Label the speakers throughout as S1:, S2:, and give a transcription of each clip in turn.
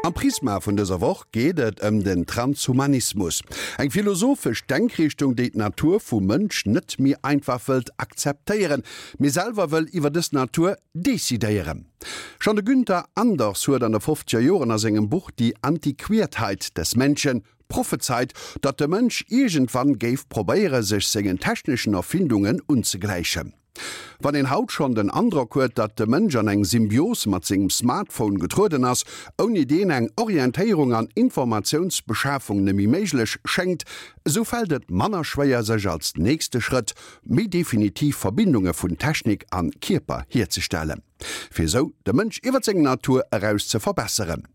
S1: Am Prisma vun dëser Woch geet et ëm den Transhumanismus, eng philosophesch Denkrichtung, déi d'Natur vum Mënsch net méi einfach wëllt akzeptéieren, mee selwer wëll iwwer dës Natur decidéieren. Schonn de Günther Anders huet an de fofzeger Joren a sengem Buch Die Antiquiertheit des Menschen prophezeit, datt de Mënsch iergendwann géif probéiere sech sengen techneschen Erfindungen unzegläichen. Wann een haut schonn den Androck huet, datt de Mënsch an eng Symbios mat sengem Smartphone getrueden ass, ouni deen eng Orientéierung an Informatiounsbeschafung nemmi méiglech schéngt, esou fält et manner schwéier sech als nächste Schrëtt méi definitiv Verbindunge vun Technik an Kierper hierzestellen, fir esou de Mënsch iwwer seng Natur eraus ze verbesseren.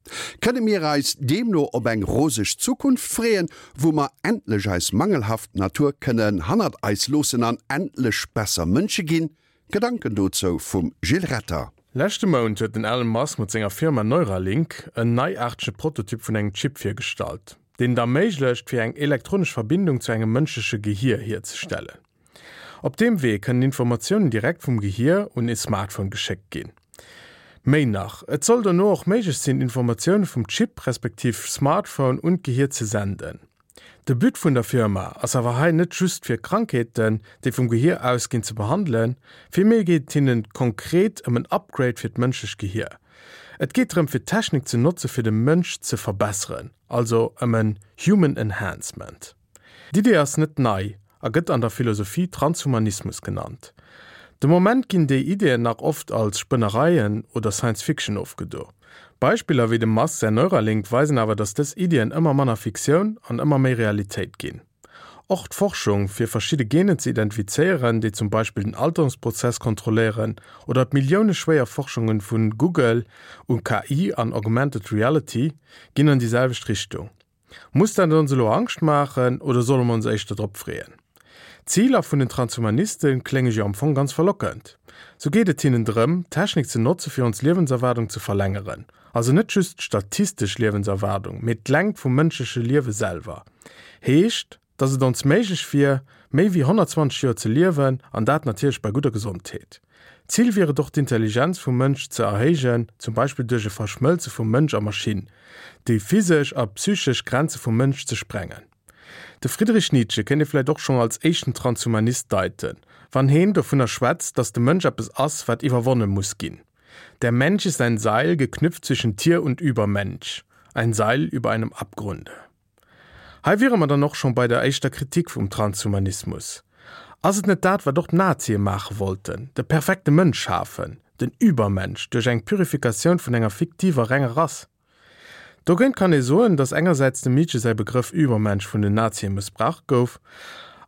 S1: Kënne mir eis deemno op eng roseg Zukunft freeën, wou mer endlech eis mangelhaft Natur kënnen hannert eis loossen an endlech besser Mënsche ginn? Gedanken dozou vum Gilles Retter.
S2: Leschte Mount huet den Elon Musk mat senger Firma Neuralink en neiaartege Prototyp vun engem Chip virgestallt, deen et erméiglecht, fir eng elektronesch Verbindung zu engem mënschleche Gehier hierzestellen. Op deem Wee kënnen Informatiounen direkt vum Gehier un e Smartphone geschéckt ginn. Méi nach, et soll dono och méiglech sinn, Informatioune vum Chip respektiv Smartphone un d'Gehier ze senden. De But vun der Firma ass awer hei net just fir Krankheeten, déi vum Gehier ausginn, ze behandelen, villméi geet et hinnen konkret ëm en Upgrade fir d'mënschlecht Gehier. Et geet drëm fir d'Technik ze notze fir de Mënsch ze verbesseren, also ëm en Human Enhancement. D'Idee ass net nei a gëtt an der Philosophie Transhumanismus genannt. De Moment ginn déi Ideeën nach oft als Spënnereien oder Science Fiction ofgedo. Beispiller wéi dem Musk säin Neuralink weisen awer, datt dës Iddien ëmmer manner Fiktioun an ëmmer méi Realitéit ginn. Och d'Forschung, fir verschidde Genen ze identifizéieren, déi zum Beispill den Alterungsprozess kontrolléieren, oder d'milliouneschwéier Forschunge vu Google u KI an Augmented Reality ginn an déi selwecht Richtung. Muss dat ons elo Angscht maachen oder solle mer ons éischter drop freeën? D'Ziler vun den Transhumaniste klénge jo am Fong ganz verlockend. Sou geet et hinnen drëm, d'Technik ze notze fir ons Liewenserwaardung ze verlängeren. Also net just d'statistesch Liewenserwaardung, mee d'Längt vum mënschleche Liewe selwer. Heescht, dass et ons méiglech wier, méi wéi 120 Joer ze liewen, an dat natierlech bei gudder Gesondheet. Zil wier et och d'Intelligenz vum Mënsch ze erhéijen, zum Beispill duerch e Verschmëlze vu Mënsch a Maschinn, déi physesch a psychesch Grenze vum Mënsch ze sprengen. De Friedrich Nietzsche kéint ee vläicht och schonn als éischten Transhumanist deiten, wann heen dovunner schwätzt, dass de Mënsch eppes ass, wat iwwerwonne muss ginn, Der Mensch ist ein Seil, geknüpft zwischen Tier und Übermensch, ein Seil über einem Abgrunde. Hei wiere mer dann och schonn bei der éischter Kritik vum Transhumanismus. Ass et net dat, wat och d'Nazie maache wollten, de perfekte Mënsch schafen, den Übermensch, duerch eng Purifikatioun vun enger fiktiver renger Rass? Dogéint kann ee soen, datt engersäits dem Nietzsche säi Begrëff Übermensch vun den Nazie mëssbraucht gouf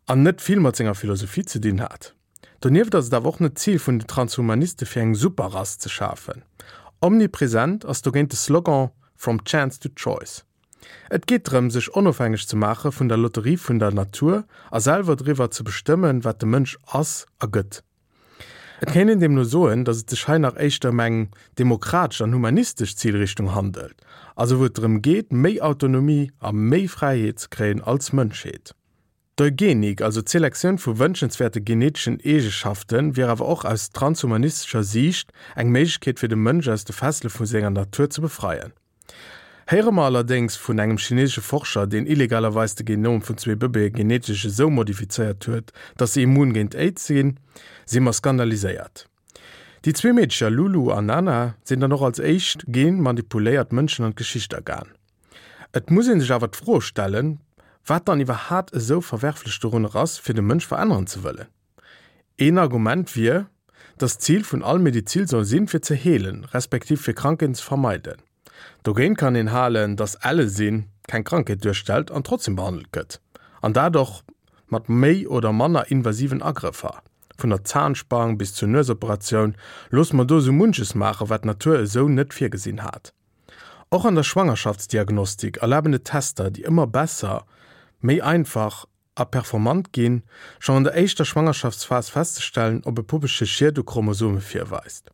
S2: an net vill mat senger Philosophie ze dinn hat. Donieft ass et awer och net d'Zil vun den Transhumaniste fir eng Superrass ze schafen. Omnipresent ass dogéint de Slogan From chance to choice. Et geet drëm, sech onofhängeg ze maache vun der Lotterie vun der Natur a selwer driwwer ze bestëmmen, wat de Mënsch ass a gëtt. Et kéint een deemno soen, datt et sech hei nach éischter ëm eng demokratesch an humanistesch Zilrichtung handelt, also wou et drëm geet, méi Autonomie a méi Fräiheet ze kréien als Mënschheet. D'Eugenik, also d'Selektioun vu wënschenswäerte geneteschen Eegeschaften, wier awer och aus transhumanistescher Siicht eng Méiglechkeet fir de Mënsch aus de Fessele vu senger Natur ze befreien. Héiere mer allerdéngs vun engem chinesesche Forscher, deen illegalerweis de Genom vun zwee Bëbeeë genetesch esou modifizéiert huet, datt se immun géint Aids sinn, si mer skandaliséiert. Déi zwee Meedecher Lulu an Nana sinn dann och als éischt genmanipuléiert Mënschen an d'Geschicht agaan. Et muss ee sech awer d'Fro stellen, wat dann iwwerhaat esou verwerflech dorunner ass, fir de Mënsch veränneren ze wëllen. Een Argument wier, datt d'Zil vun all Medizil soll sinn, fir ze heelen, respektiv fir Krankheeten ze vermeiden. Dogéint kann een halen, datt elle sinn keng Krankheet duerstellt an trotzdem behandelt gëtt, an dat och mat méi oder manner invasiven Agrëffer. Vun der Zahnspang bis zur Nuesoperatioun loosse mer do esou munches maachen, wat d'Natur esou net virgesinn hat. Och an der Schwangerschaftsdiagnostik erlaben et Tester, déi ëmmer besser, méi einfach a performant ginn, schonn an der éischter Schwangerschaftsphas festzestellen, ob e Puppelche Schied u Chromosome virweist.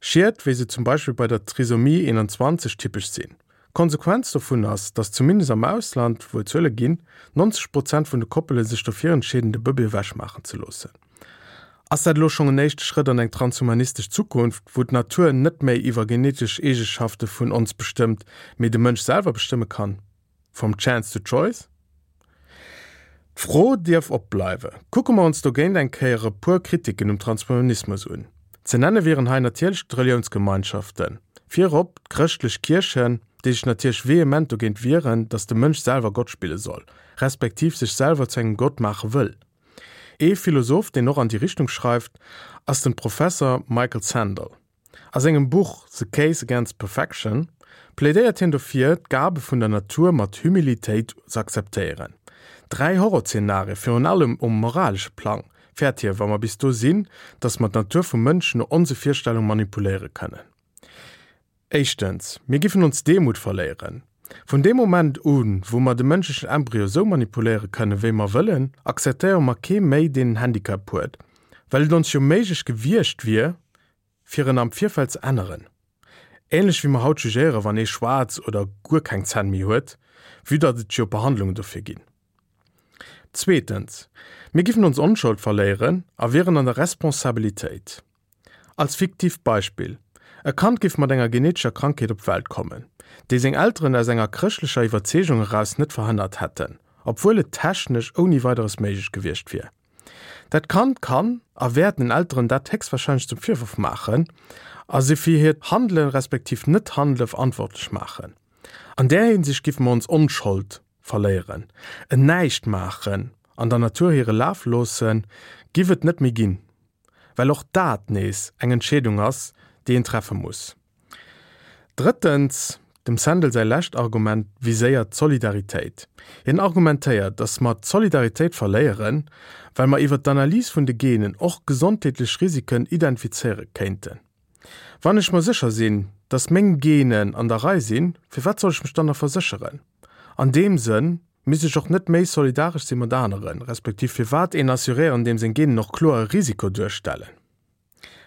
S2: Schied, wéi se zum Beispill bei der Trisomie 21 typesch sinn. D'Konsequenz dovun ass, datt zumindest am Ausland, wou et Zuele ginn, 90 Prozent vun de Koppele sech dofir entscheeden, de Bëbee ewechmaachen ze loossen. Ass dat elo schonn en éischte Schrëtt an eng transhumanistesch Zukunft, wou d'Natur net méi iwwer genetesch Eegeschafte vun ons bestëmmt, mee de Mënsch selwer bestëmme kann? From chance to choice? D'Fro dierf opbleiwe. Kucke mer ons dogéint eng Kéier e puer Kritiken um Transhumanismus un. Ze nenne wieren hei natierlech d'Reliounsgemeinschaften, virop d'chrëschtlech Kierchen, déi sech natierlech vehement dogéint wieren, datt de Mënsch selwer Gott spille soll, respektiv sech selwer zu engem Gott maache wëll. Ee Philosoph, deen och an déi Richtung schreift, ass den Professer Michael Sandel. A sengem Buch The Case Against Perfection plädéiert hien dofir, d'Gabe vun der Natur mat Humilitéit z'akzeptéieren. 3 Horrorzeenarie, virun allem um moralesche Plang, fäert hie, wa mer bis do sinn, datt mer d'Natur vum Mënsch no onse Virstellung manipuléiere kënnen. Éischtens, mir giffen ons Demut verléieren. Vun deem Moment un, wou mer de mënschlechen Embryo sou manipuléiere kënnen, wéi mer wëllen, akzeptéiere mer kee méi, deen en Handicap huet, well et ons jo méiglech gewiescht wier, fir en am Virfeld ze änneren. Ähnlech wéi mer haut jugéieren, wann ee schwaarz oder guer keng Zänn méi huet, vue datt et jo Behandlungen dofir ginn. Zweetens, mir giffen ons Onschold verléieren a wieren an der Responsabilitéit. Als fiktiivt Beispill, E Kand géif mat enger genetescher Krankheet op d'Welt kommen, déi seng Elteren aus enger chrëschtlecher Iwwerzeegung eraus net verhënnert hätten, obwuel et technesch ouni Weideres méiglech gewiescht wier. Dat Kand kann a wäert den Elteren dat héchstwahrscheinlech zum Virworf maachen a si fir hiert Handelen respektiv Net-Handele verantwortlech maachen. An där Hinsicht géife mer ons Onschold verléieren. En Näischtmaachen an der Natur hire Laf loossen, giff et net méi ginn. Well och dat nees eng Entscheedung ass, déi een treffe muss. Drëttens, dem Sandel säi lescht Argument viséiert d'Solidaritéit. Hien argumentéiert, datt mer d'Solidaritéit verléieren, well mer iwwer d'Analys vun de Genen och gesondheetlech Risiken identifizéiere kéinten. Wann ech mer sécher sinn, datt meng Genen an der Rei sinn, firwat soll ech mech dann nach versécheren? An deem Sënn misst ech och net méi solidaresch si mat aneren, respektiv firwat een assuréieren, deem seng Genen och kloer e Risiko duerstellen?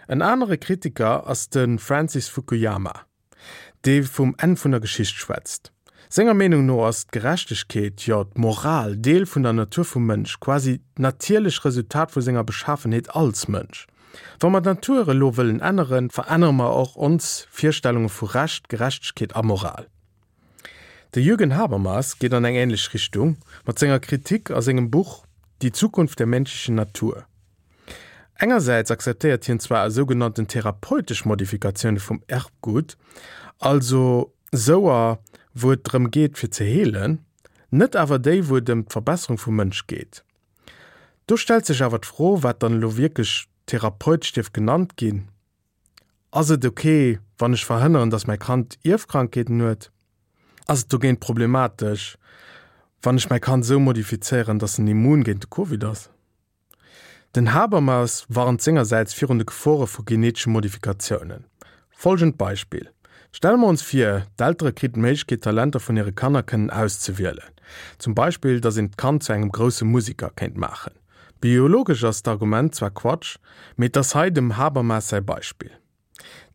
S2: En anere Kritiker ass de Francis Fukuyama, dee vum Enn vun der Geschicht schwätzt. Senger Meenung no ass d'Gerechtegkeet, jo d'Moral, Deel vun der Natur vum Mënsch, quasi d'natierlech Resultat vu senger Beschafenheet als Mënsch. Wa mer d'Natur elo wëllen änneren, verännere mer och ons Virstellunge vu Recht, Gerechtegkeet a Moral. De Jürgen Habermas geet an eng änlech Richtung mat senger Kritik a sengem Buch Die Zukunft der menschlichen Natur. Engersäits akzeptéiert hien zwar sougenannten therapeutesch Modifikatioune vum Erbgut, also souer wou et drëm geet fir ze heelen, net awer déi wou et ëm d'Verbesserung vum Mënsch geet. Do stellt sech awer d'Fro wat dann elo wierklech therapeutesch dierf genannt ginn. Ass et ok, wann ech verhënneren, dass mäi Kand Ierfkrankheeten huet? Ass et dogéint problematesch, wann ech mäi Kand esou modifizéieren, dass en immun géint de Covid ass? Den Habermas warnt sengersäits virun de Gefore vu genetesche Modifikatiounen. Folgend Beispill, Stelle mer ons vir, d'Eltere kriten d'Méiglechkeet d'Talenter vun hire Kanner kënnen auszewielen. Zum Beispill, dass een d'Kand zu engem grousse Musiker kéint maachen. Biologesch ass d'Argument zwar Quatsch, mee et ass hei dem Habermas säi Beispill.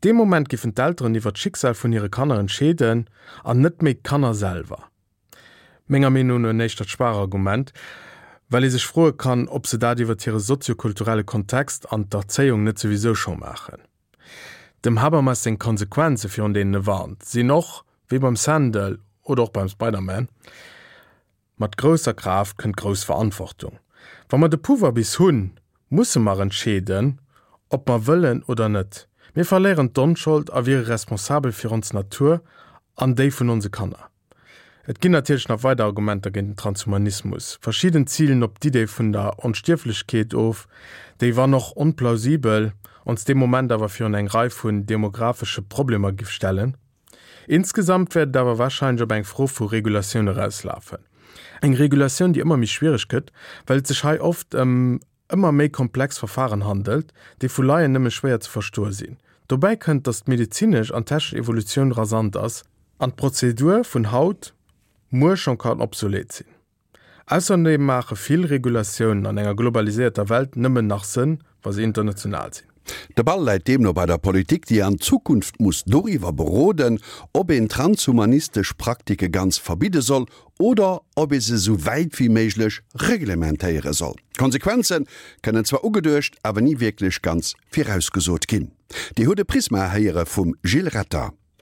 S2: Dee Moment giffen d'Elteren iwwer d'Schicksal vun hire Kanner entscheeden an net méi d'Kanner selwer. Menger Meenung no en éischtert schwaach Argument, well ee sech froe kann, ob se dat iwwer hire soziokulturelle Kontext an d'Erzéiung net souwisou scho maachen. Dem Habermas seng Konsequenze virun deenen e warnt, sinn och, wéi beim Sandel oder och beim Spider-Man, Mat grousser Kraaft kënnt grouss Verantwortung. Wa mer de Pouvoir bis hunn, musse mer entscheeden, ob mer wëllen oder net. Mir verléieren d'Onschold a wiere responsabel fir ons Natur an déi vun onse Kanner. Et ginn natierlech nach weider Argumenter géint den Transhumanismus. Verschidden zilen op d'Idee vun der Onstierflechkeet of, déi, wann och onplausibel, ons dee Moment awer virun eng Rei vun demographesche Problemer giff stellen. Insgesamt wäert et awer warscheinlech op eng Fro vu Regulatioun erauslafen. Eng Regulatioun, déi ëmmer méi schwiereg gëtt, well et sech hei oft ëm ëmmer méi komplex Verfahren handelt, déi vu Laien nëmme schwéier ze verstoe sinn. Dobäi kënnt, datt d'medezinesch an technesch Evolutioun rasant ass an d'Prozedur vun haut muer schonn kann obsolet sinn. Ausserdeem maache vill Regulatiounen an enger globaliséierter Welt nëmmen nach Sënn, wa se international sinn.
S1: De Ball läit deemno bei der Politik, déi an Zukunft muss doriwwer beroden, ob een transhumanistesch Praktike ganz verbidde soll oder ob ee se sou wäit wéi méiglech reglementéiere soll. D'Konsequenze kënnen zwar ugeduecht, awer ni wierklech ganz virausgesot ginn. Dir hutt e Prisma héiere vum Gilles Retter.